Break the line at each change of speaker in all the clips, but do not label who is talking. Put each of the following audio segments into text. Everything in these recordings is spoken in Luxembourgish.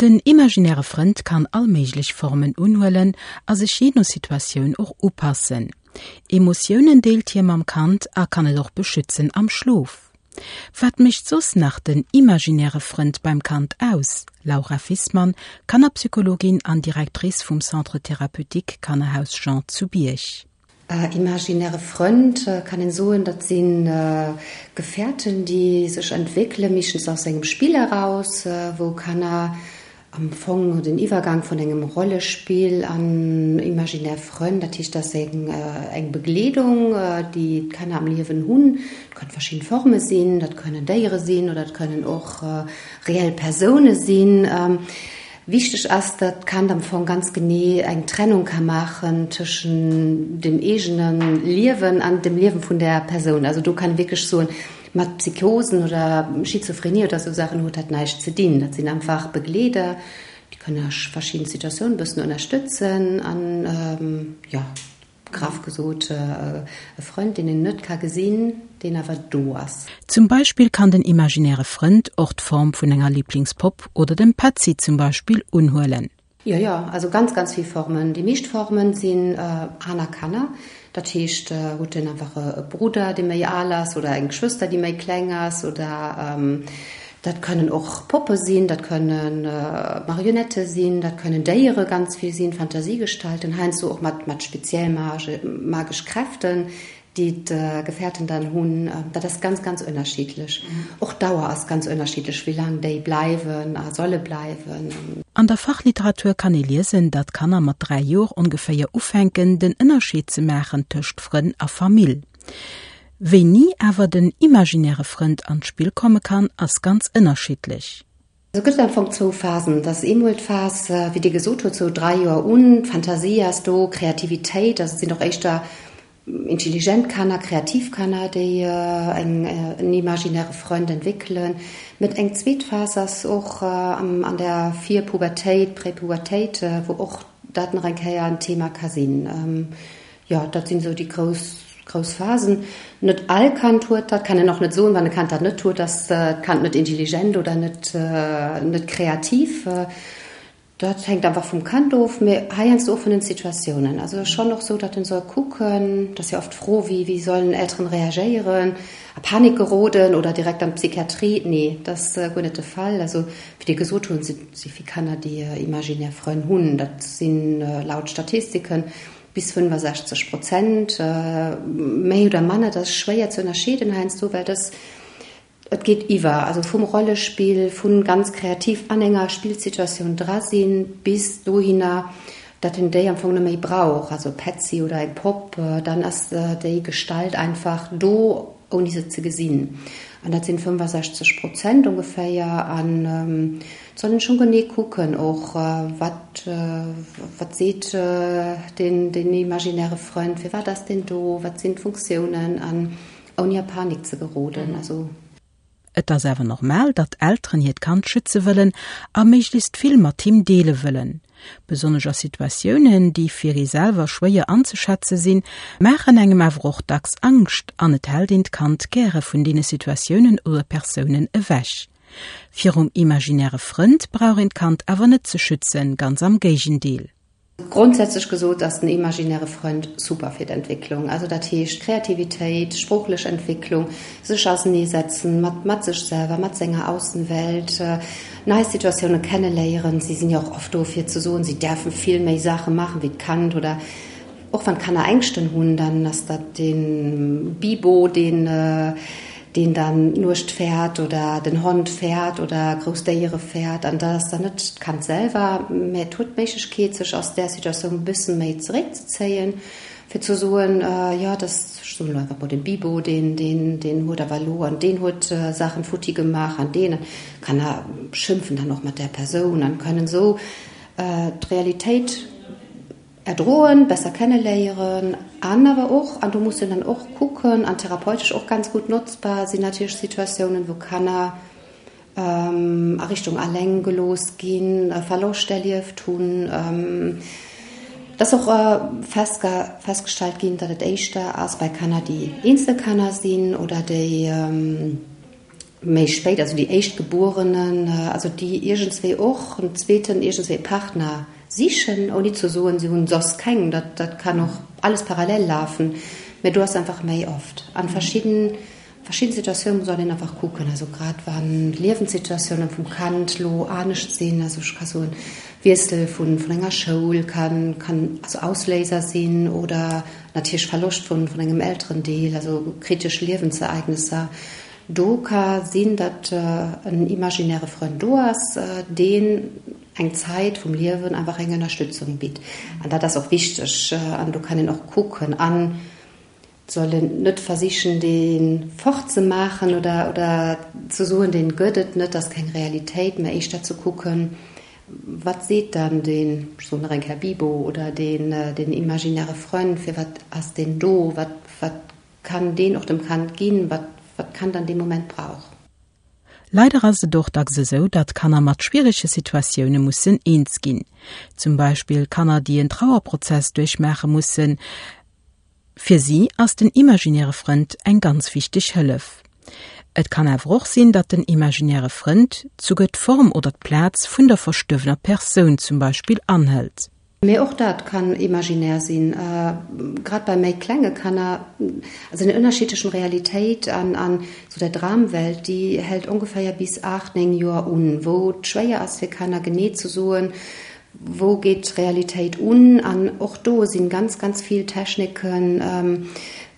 Den imaginäre Frënd kann all méiglech Formen unhuelen a sech jee no Situatioun och upassen. Emotiounen deelt hie mam Kand a kann et och beschützen am Schlof. Wat mécht soss nach den imaginäre Frënd beim Kand aus? Laura Fissmann, Kannerpsychologin an Directrice vum Centre Thérapeutique Kannerhaus Jean zu Bierg.
Imaginäre Frënd kann een soen, dat si Gefährten, déi sech entwéckelen, meeschtens aus engem Spill eraus, wou Kanner am Fong den Iwwergang vun engem Rollespill an imaginär Frënn, dat heescht, dat ass eng Begleedung, déi d'Kanner am Liewen hunn. Dat kënnen verschidden Forme sinn, dat kënnen Déiere sinn oder dat kënnen och reell Persoune sinn. Wichteg ass, datt d'Kand am Fong ganz genee eng Trennung ka maachen tëschen dem eegene Liewen an dem Liewen vun där Persoun. Also do kann ee wierklech soen, mat Psychosen oder Schizophrenie oder esou Saachen huet dat näischt ze dinn. Dat sinn einfach Begleeder, déi kënnen a verschidden Situatiounen e bëssen ënnerstëtzen an, jo. Graff gesot, e Frënd, deen een net ka gesinn, deen awer do ass.
Zum Beispill kann den imaginäre Frënd och d'Form vun enger Liblingspopp oder dem Petzi zum Beispill unhuelen.
Jo, jo, also ganz, ganz vill Formen. Déi meescht Formen sinn aner Kanner. Dat heescht, huet en einfach e Brudder, dee méi al ass, oder eng Schwëster, déi méi kleng ass, oder Dat kënnen och Poppe sinn, dat kënne Marionette sinn, dat kënnen Déiere ganz vill sinn, Fantasiegestalten, heiansdo och mat mat speziell magesch Kräften, déi d'Gefährten dann hunn. Dat ass ganz, ganz ënnerschiddlech. Och d'Dauer ass ganz ënnerschiddlech, wéi laang déi bleiwen a solle bleiwen.
An der Fachliteratur kann ee liesen, datt Kanner mat 3 Joer ongeféier ufänken, den Ënnerscheed ze maachen tëscht Frënn a Famill. Wéini awer den imaginäre Frënd an d'Spill komme kann, ass ganz ënnerschiddlech.
Et gëtt am Fong zwou Phasen. Et ass eemol d'Phas, wéi Dir gesot hutt, sou 3 Joer un, d'Fantasie ass do, Kreativitéit, also et sinn och éischter intelligent Kanner, kreativ Kanner, déi eng en imaginäre Frënd entwéckelen. Met eng zweet Phas ass och an der Virpubertéit, Präpubertéit, wou och dat nach eng Kéier en Thema ka sinn. Jo, dat sinn esou déi grouss, grouss Phasen. Net all Kand huet dat, kann een och net soen, wann e Kand dat net huet, ass d'Kand net intelligent oder net, net kreativ. Dat hänkt einfach vum Kand of, mee heiansdo och vun den Situatiounen. Also et ass schonn och esou, datt en soll kucken, dat ass jo oft d'Fro, wéi, wéi sollen Elteren reagéieren, a Panik geroden oder direkt an d'Psychiatrie? Nee, dat ass guer net de Fall. Also wéi Dir gesot hunn, si vill Kanner, déi imaginär Frënn hunn. Dat sinn laut Statistiken Bis 65 Prozent, méi oder manner, dat ass schwéier ze ënnerscheeden heiansdo, well dass, et geet iwwer, also vum Rollespill, vu ganz kreativ an enger Spillsituatioun dra sinn, bis dohinner, datt en déi am Fong net méi brauch, also Petzi oder eng Popp, dann ass déi Gestalt einfach do, ouni se ze gesinn. An dat sinn 65 Prozent ongeféier. An et soll een schonn genee kucken och, wat, wat seet deen, deen imaginäre Frënd, firwat ass deen do, wat sinn d'Funktiounen, an ouni a Panik ze geroden. Also.
Et ass awer normal, datt Elteren hiert Kand schütze wëllen a méiglechst vill mat him deele wëllen. Besonnesch a Situatiounen, déi fir ee selwer schwéier anzeschätze sinn, maachen engem awer och dacks Angscht an et hält een d'Kand gäre vun deene Situatiounen oder Persounen ewech. Virum imaginäre Frënd brauch een d'Kand awer net ze schützen, ganz am Géigendeel.
Grondsätzlech gesot ass den imaginäre Frënd super fir d'Entwécklung. Also dat heescht Kreativitéit, sproochlech Entwécklung, sech auseneesetzen mat mat sech selwer, mat senger Aussenwelt, nei Situatioune kenneléieren. Si sinn jo och oft do fir ze soen, si däerfe vill méi Saache maachen wéi d'Kand oder Och wann d'Kanner Ängschten hunn, dann ass dat de Bibo, deen deen dann d'Nuecht fäert oder den Hond fäert oder grouss Déiere fäert. An dat ass dann net d'Kand selwer, mä et huet d'Méiglechkeet, sech aus där Situatioun e bësse méi zeréckzezéien, fir ze soen, jo, dat ass, ech soen elo einfach mol, de Bibo, deen deen deen huet awer elo an deen huet Saachen futti gemaach an deen. D'Kanner schimpfen dann och mat där Persoun an kënnen esou d'Realitéit Erdroen, besser kenneléieren an awer och, an do muss een dann och kucken, an therapeutesch och ganz gutt notzbar sinn natierlech Situatiounen, wou Kanner a Richtung alleng gelooss ginn, e Verloscht erlieft hunn. Et ass och festgestallt ginn, datt et éischter ass bei Kanner, déi Eenzelkanner sinn oder déi. méi spéit, also déi Éischtgebuerenen, also déi iergendswéi och en zweeten iergendswéi Partner sichen, ouni ze soen, si hunn soss keng, dat dat kann och alles parallel lafen, mä do ass einfach méi oft an verschidden verschidden Situatiounen soll een einfach kucken, also grad wann d'Liewenssituatiounen vum Kand lo anescht sinn, also ech ka soen Wiessel vun vun enger Schoul kann kann also Ausléiser sinn oder natierlech Verloscht vun vun engem Elterendeel, also kritesch Liewensereignesser. Do ka sinn, datt en imaginäre Frënd do ass, deen eng Zäit vum Liewen einfach eng Ënnerstützung bitt. An dat ass och wichteg. An do kann een och kucken an soll een net versichen, dee fortzemaachen oder, oder ze soen, deen gëtt et net, ass keng Realitéit, mä éischter ze kucken, wat seet dann deen, ech soen nach eng Kéier Bibo, oder deen, deen imaginäre Frënd, firwat ass deen do, wat, wat kann deen och dem Kand ginn, wat wat d'Kand an deem Moment brauch.
Leider ass et och dacks esou, datt Kanner mat schwierege Situatioune mussen eens ginn. Zum Beispill Kanner, déi en Trauerprozess duerchmaache mussen. Fir si ass den imaginäre Frënd eng ganz wichteg Hëllef. Et kann awer och sinn, datt den imaginäre Frënd souguer d'Form oder d'Plaz vun der verstuerwener Persoun zum Beispill anhëlt.
Mee och dat kann imaginär sinn, grad bei méi klenge Kanner. Also den Ënnerscheed tëschent Realitéit an an sou der Dramwelt, déi hält ongeféier bis 8, 9 Joer un, wou et schwéier ass fir Kanner genee ze soen, wou geet d'Realitéit un. An och do sinn ganz, ganz vill Techniken,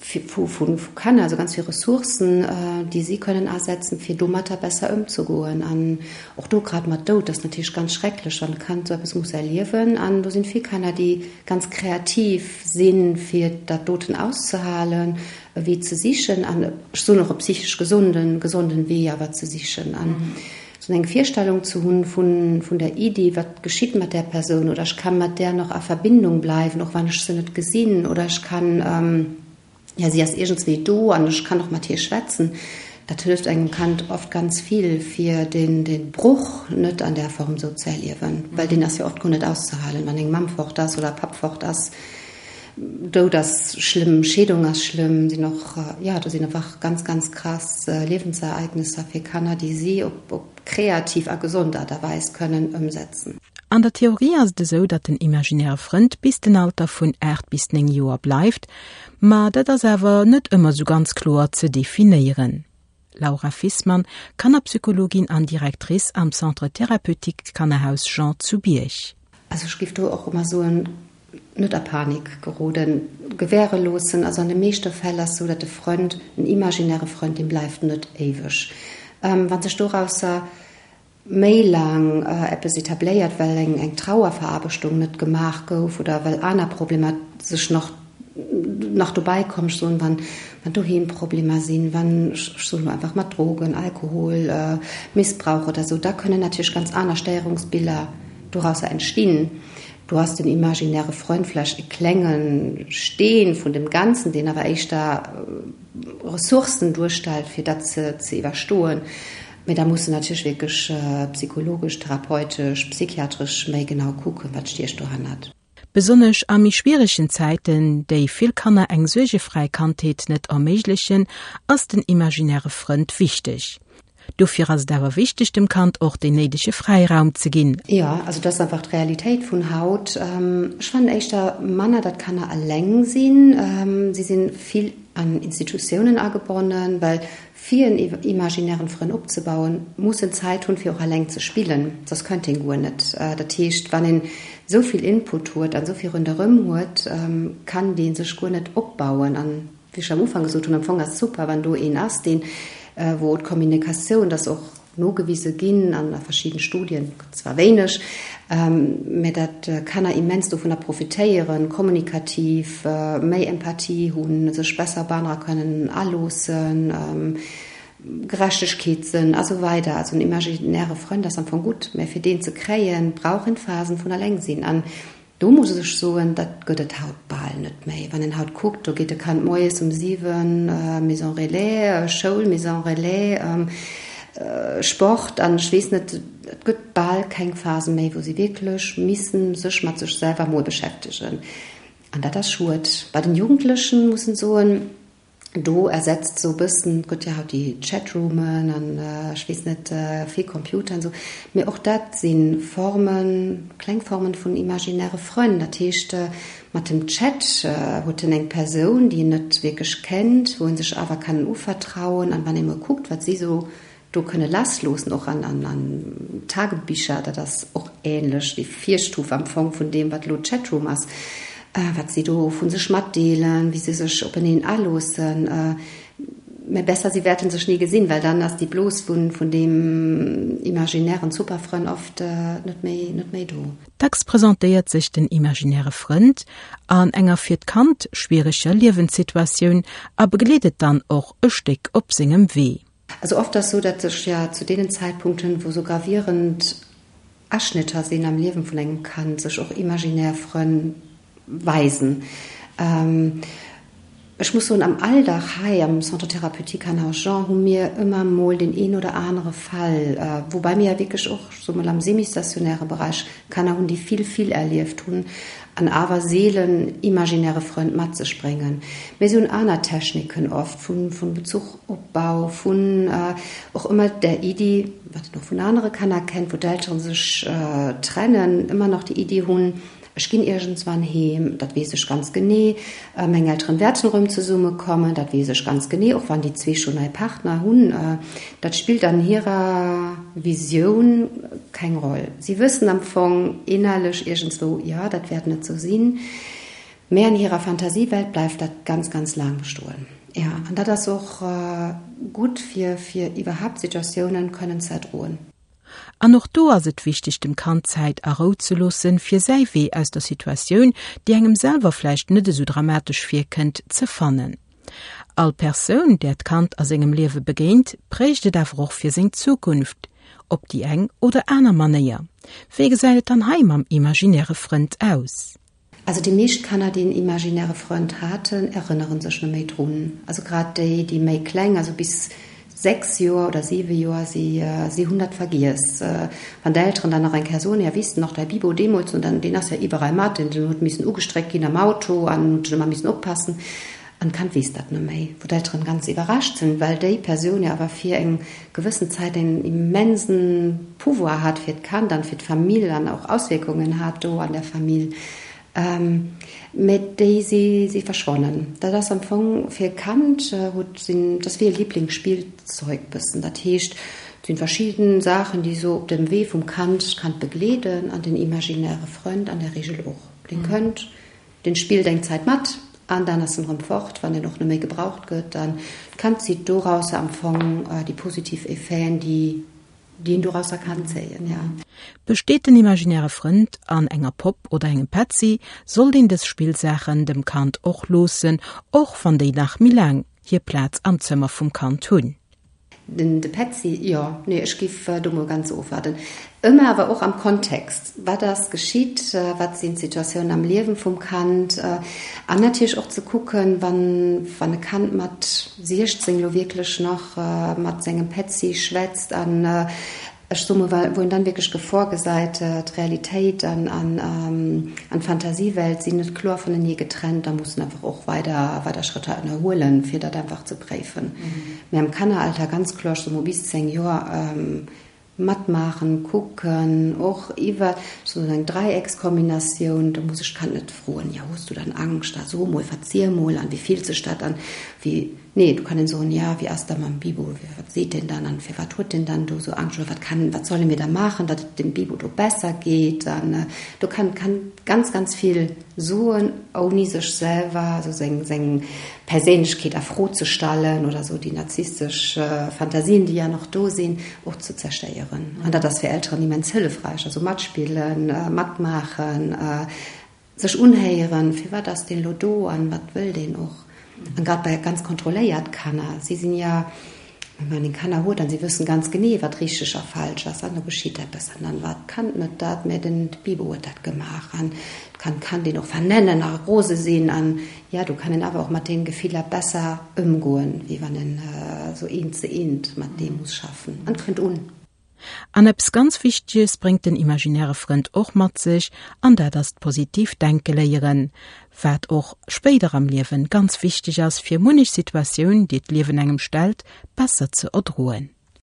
vu Kanner, also ganz vill Ressourcen, déi si kënnen asetzen, fir domatter besser ëmzegoen. An och do grad mat Doud, dat ass natierlech ganz schrecklech, wann e Kand esou eppes muss erliewen. An do sinn vill Kanner, déi ganz kreativ sinn, fir dat doten auszehalen, e Wee ze sichen an, ech soen och e psychesch gesonden, gesonden Wee awer ze sichen. An esou eng Virstellung ze hunn vun, vun der Iddi, wat geschitt mat där Persoun oder ech ka mat där nach a Verbindung bleiwen, och wann ech se net gesinn oder ech kann, ja, si ass iergendswéi do an ech kann och mat hir schwätzen, dat hëlleft engem Kand oft ganz vill, fir den, den Bruch net an där Form esou ze erliewen, well deen ass jo oft guer net auszehalen, wann eng Mamm fort ass oder e Papp fort ass. Doud ass schlëmm, Scheedung ass schlëmm, sinn och, jo, do sinn einfach ganz, ganz krass Liewensereignesser fir Kanner, déi si op op kreativ a gesond Aart a Weis kënnen ëmsetzen.
An der Theorie ass et esou, datt den imaginäre Frënd bis den Alter vun 8 bis 9 Joer bleift, ma dat ass awer net ëmmer esou ganz kloer ze definéieren. Laura Fissmann, Kannerpsychologin an Directrice am Centre Thérapeutique Kannerhaus Jean zu Bierg.
Also ech géif do och ëmmer soen, net a Panik geroden, gewäre loossen. Also an de meeschte Fäll ass sou, datt de Frënd, en imaginäre Frënd, dee bleift net éiweg. Wa sech dorausser méi laang eppes etabléiert, well eng eng Trauerveraarbechtung net gemaach gouf oder well aner Problemer sech nach nach dobäi kommen, ech soen, wann wann doheem Problemer sinn, wann, ech soen elo einfach mat Drogen, Alkohol, Missbrauch oder sou, da kënnen natierlech ganz aner Stéierungsbiller dorausser entstinn. Do ass den imaginäre Freund vläicht e klenge Steen vun dem Ganzen, deen awer éischter Ressourcen duerstellt, fir dat ze iwwerstoen. Mee da muss en natierlech wierklech psychologesch, therapeutesch, psychiatresch méi genau kucken, wat stiecht dohannert.
Besonnesch a méi schwieregen Zäiten, déi vill Kanner eng suergefräi Kandheet net erméiglechen, ass den imaginäre Frënd wichteg. Dofir ass et awer wichteg, dem Kand och deen néidege Fräiraum ze ginn.
Jo, also dat ass einfach d'Realitéit vun haut. Ech fannen éischter manner, datt Kanner eleng sinn. Si si vill an Institutiounen agebonnen, well fir en imaginären Frënn opzebauen, muss en Zäit hunn, fir och eleng ze spillen, soss kënnt een guer net. Dat heescht, wann een esou vill Input huet an esou vill ronderëm huet, kann dee sech guer net opbauen. An wéi ech am Ufank gesot hunn, am Fong ass et super, wann do een ass, deen, wou d'Kommunikatioun, dat ass och nogewise ginn an a verschidden Studien, zwar wéineg, mä dat Kanner immens dovunner profitéieren, kommunikativ méi Empathie hunn, sech besser op anerer kënnen aloossen, Gerechtegkeetssënn a sou weider. Also en imaginäre Frënd ass am Fong gutt, mä fir deen ze kréien, brauch een Phasen vun Allengsinn. An Do muss ech soen, dat gëtt et haut bal net méi. Wann een haut kuckt, do geet e Kand moies um 7 Maison Relais, Schoul, Maison Relais, Sport an ech weess net, et gëtt bal keng Phase méi, wou si wierklech missen sech mat sech selwer mol beschäftegen. An dat ass schued. Bei den Jugendlechen muss en soen, Do ersetzt sou bëssen, et gëtt jo haut déi Chatroomen an ech weess net vill Computer an esou, mee och dat si Formen, kleng Formen vun imaginäre Frënn. Dat heescht, mat dem Chat huet en eng Persoun, déi en net wierklech kennt, wou en sech awer kann uvertrauen an wann ee mol kuckt, wat si sou do kënne lassloossen, och an an Tagebicher, dat ass och ähnlech déi Virstuf am Fong vun deem, wat elo d'Chatroom ass, wat si do vu sech matdeelen, wéi se sech openeen aloossen. Mä besser, si wäerte sech ni gesinn, well dann ass déi Blos vun vun deem imaginären Superfrënn oft net méi net méi do.
Dacks presentéiert sech den imaginäre Frënd an enger fir d'Kand schwiereger Liewenssituatioun a begleet et dann och e Stéck op sengem Wee.
Also oft ass sou, datt sech ja zu deenen Zäitpunkten, wou sou gravierend Aschnitter sinn am Liewen vun engem Kand, sech och imaginär Frënn weisen. Ech muss soen, am Alldag hei am Centre thérapeutique Hannah Jean hu mir ëmmer mol deen een oder anere Fall, woubäi mir ja wierklech och, ech soe mol, am semi-stationäre Bereich Kanner hunn, déi vill, vill erlieft hunn an awer seelen imaginäre Frënd mat sech bréngen. Mee se hunn aner Techniken oft vu Bezuchopbau, vun och ëmmer där Iddi, wat een och vun anere Kanner kennt, wou d'Eltere sech trennen, ëmmer nach déi Iddi hunn, Ech ginn iergendswann heem, dat weess ech ganz genee. Meng Elteren wäerten erëm zesummekommen, dat weess ech ganz genee, och wann déi zwee schonn nei Partner hunn. Dat spillt an hirer Visioun keng Roll. Si wëssen am Fong innerlech iergendswou, jo, dat wäert net sou sinn, mä an hirer Fantasiewelt bleift dat ganz, ganz laang bestoen. Jo, an dat ass och gutt, fir, fir iwwerhaapt Situatiounen kënnen ze erdroen.
An och do ass et wichteg dem Kand Zäit a Rou ze loossen, fir säi Wee aus der Situatioun, déi engem selwer vläicht net esou dramatesch virkënnt, ze fannen. All Persoun, där d'Kand a sengem Liewe begéint, prägt et awer och fir seng Zukunft, op déi eng oder aner Manéier. Wéi gesäit et dann hei mam imaginäre Frënd aus?
Also déi meescht Kanner, déi en imaginäre Frënd haten, erënnere sech net méi drun. Also grad déi, déi méi kleng, also bis 6 Joer oder 7 Joer, si, si hunn dat vergiess. Wann d'Elteren dann nach eng Kéier soen, ja weess de nach, däi Bibo deemools, und dann, deen ass ja iwwerall mat, deen huet missen ugestréckt ginn am Auto an huet ëmmer missen oppassen. An d'Kand weess dat net méi, wou d'Elteren ganz iwwerrascht sinn, well déi Persoun jo awer fir eng gewëssen Zäit en immensen Pouvoir hat fir d'Kand an fir d'Famill an och Auswierkungen hat do an der Famill. Mä déi si si verschwonnen. Dat ass am Fong fir e Kand huet sinn, dat ass wéi e Liblingsspillzeug bëssen. Dat heescht, et sinn verschidden Saachen, déi esou op dem Wee vum Kand d'Kand begleeden an den imaginäre Frënd an der Regel och. Dee kënnt Den spillt eng Zäit mat an dann ass en rëm fort, wann en och net méi gebraucht gëtt. An d'Kand zitt dorausser am Fong déi positiv Effeten, déi déi en dorausser kann zéien, ja.
Besteet den imaginäre Frënd an enger Popp oder engem Petzi, sollt een dës Spillsaachen dem Kand och loossen, och wann déi nach méi laang hir Plaz am Zëmmer vum Kand hunn.
Den de Petzi, jo, nee, ech giff do mol ganz ofwaarden. Ëmmer awer och am Kontext, wat ass geschitt, wat sinn d'Situatiounen am Liewen vum Kand an natierlech och ze kucken, wann wann e Kand mat 16 elo wierklech nach mat sengem Petzi schwätzt an Ech soe mol, wou een dann wierklech d'Gefor gesäit, d'Realitéit an d'Fantasiewelt sinn net kloer vunenee getrennt, da muss en einfach och weider weider Schrëtter ënnerhuelen, fir dat einfach ze préifen. Mee am Kanneralter ganz kloer, ech soe mol bis 10 Joer, matmaachen, kucken, och iwwer sou eng Dräieckskombinatioun, do muss ech d'Kand net froen, jo hues du dann Angscht, da so mol, verziel mol an wéi fillt sech dat an, wéi Nee, do kann een soen, ja, wéi ass da mam Bibo, wat seet deen dann an firwat huet deen dann do esou Angscht oder wat kann, wat solle mir da maachen, datt et dem Bibo do besser geet an do kann kann ganz, ganz vill soen, ouni sech selwer, also seng, seng Perséinlechkeet a Fro ze stallen oder esou déi narzisstesch Fantasien, déi ja nach do sinn, och ze zerstéieren. An dat ass fir Elteren immens hëllefräich, also matspillen, matmaachen, Sech unhéieren, firwat ass deen elo do an wat wëll deen och. An grad bei ganz kontrolléiert Kanner, si sinn ja, wann een Kanner huet an si wëssen ganz genee wat richteg a falsch ass an do geschitt eppes an dann war d'Kand net dat, mä den Bibo huet dat gemaach an d'Kand kann deen och vernennen a rose sinn an ja do kann een awer och mat den Gefiller besser ëmgoen, wéi wann en esou eent ze eent mat deem muss schaffen an et kënnt un.
An eppes ganz Wichteges bréngt den imaginäre Frënd och mat sech, an dat ass d'positiv Denke léieren, wat och spéider am Liewen ganz wichteg ass, fir munnech Situatioun, déi d'Liewen engem stellt, besser ze erdroen.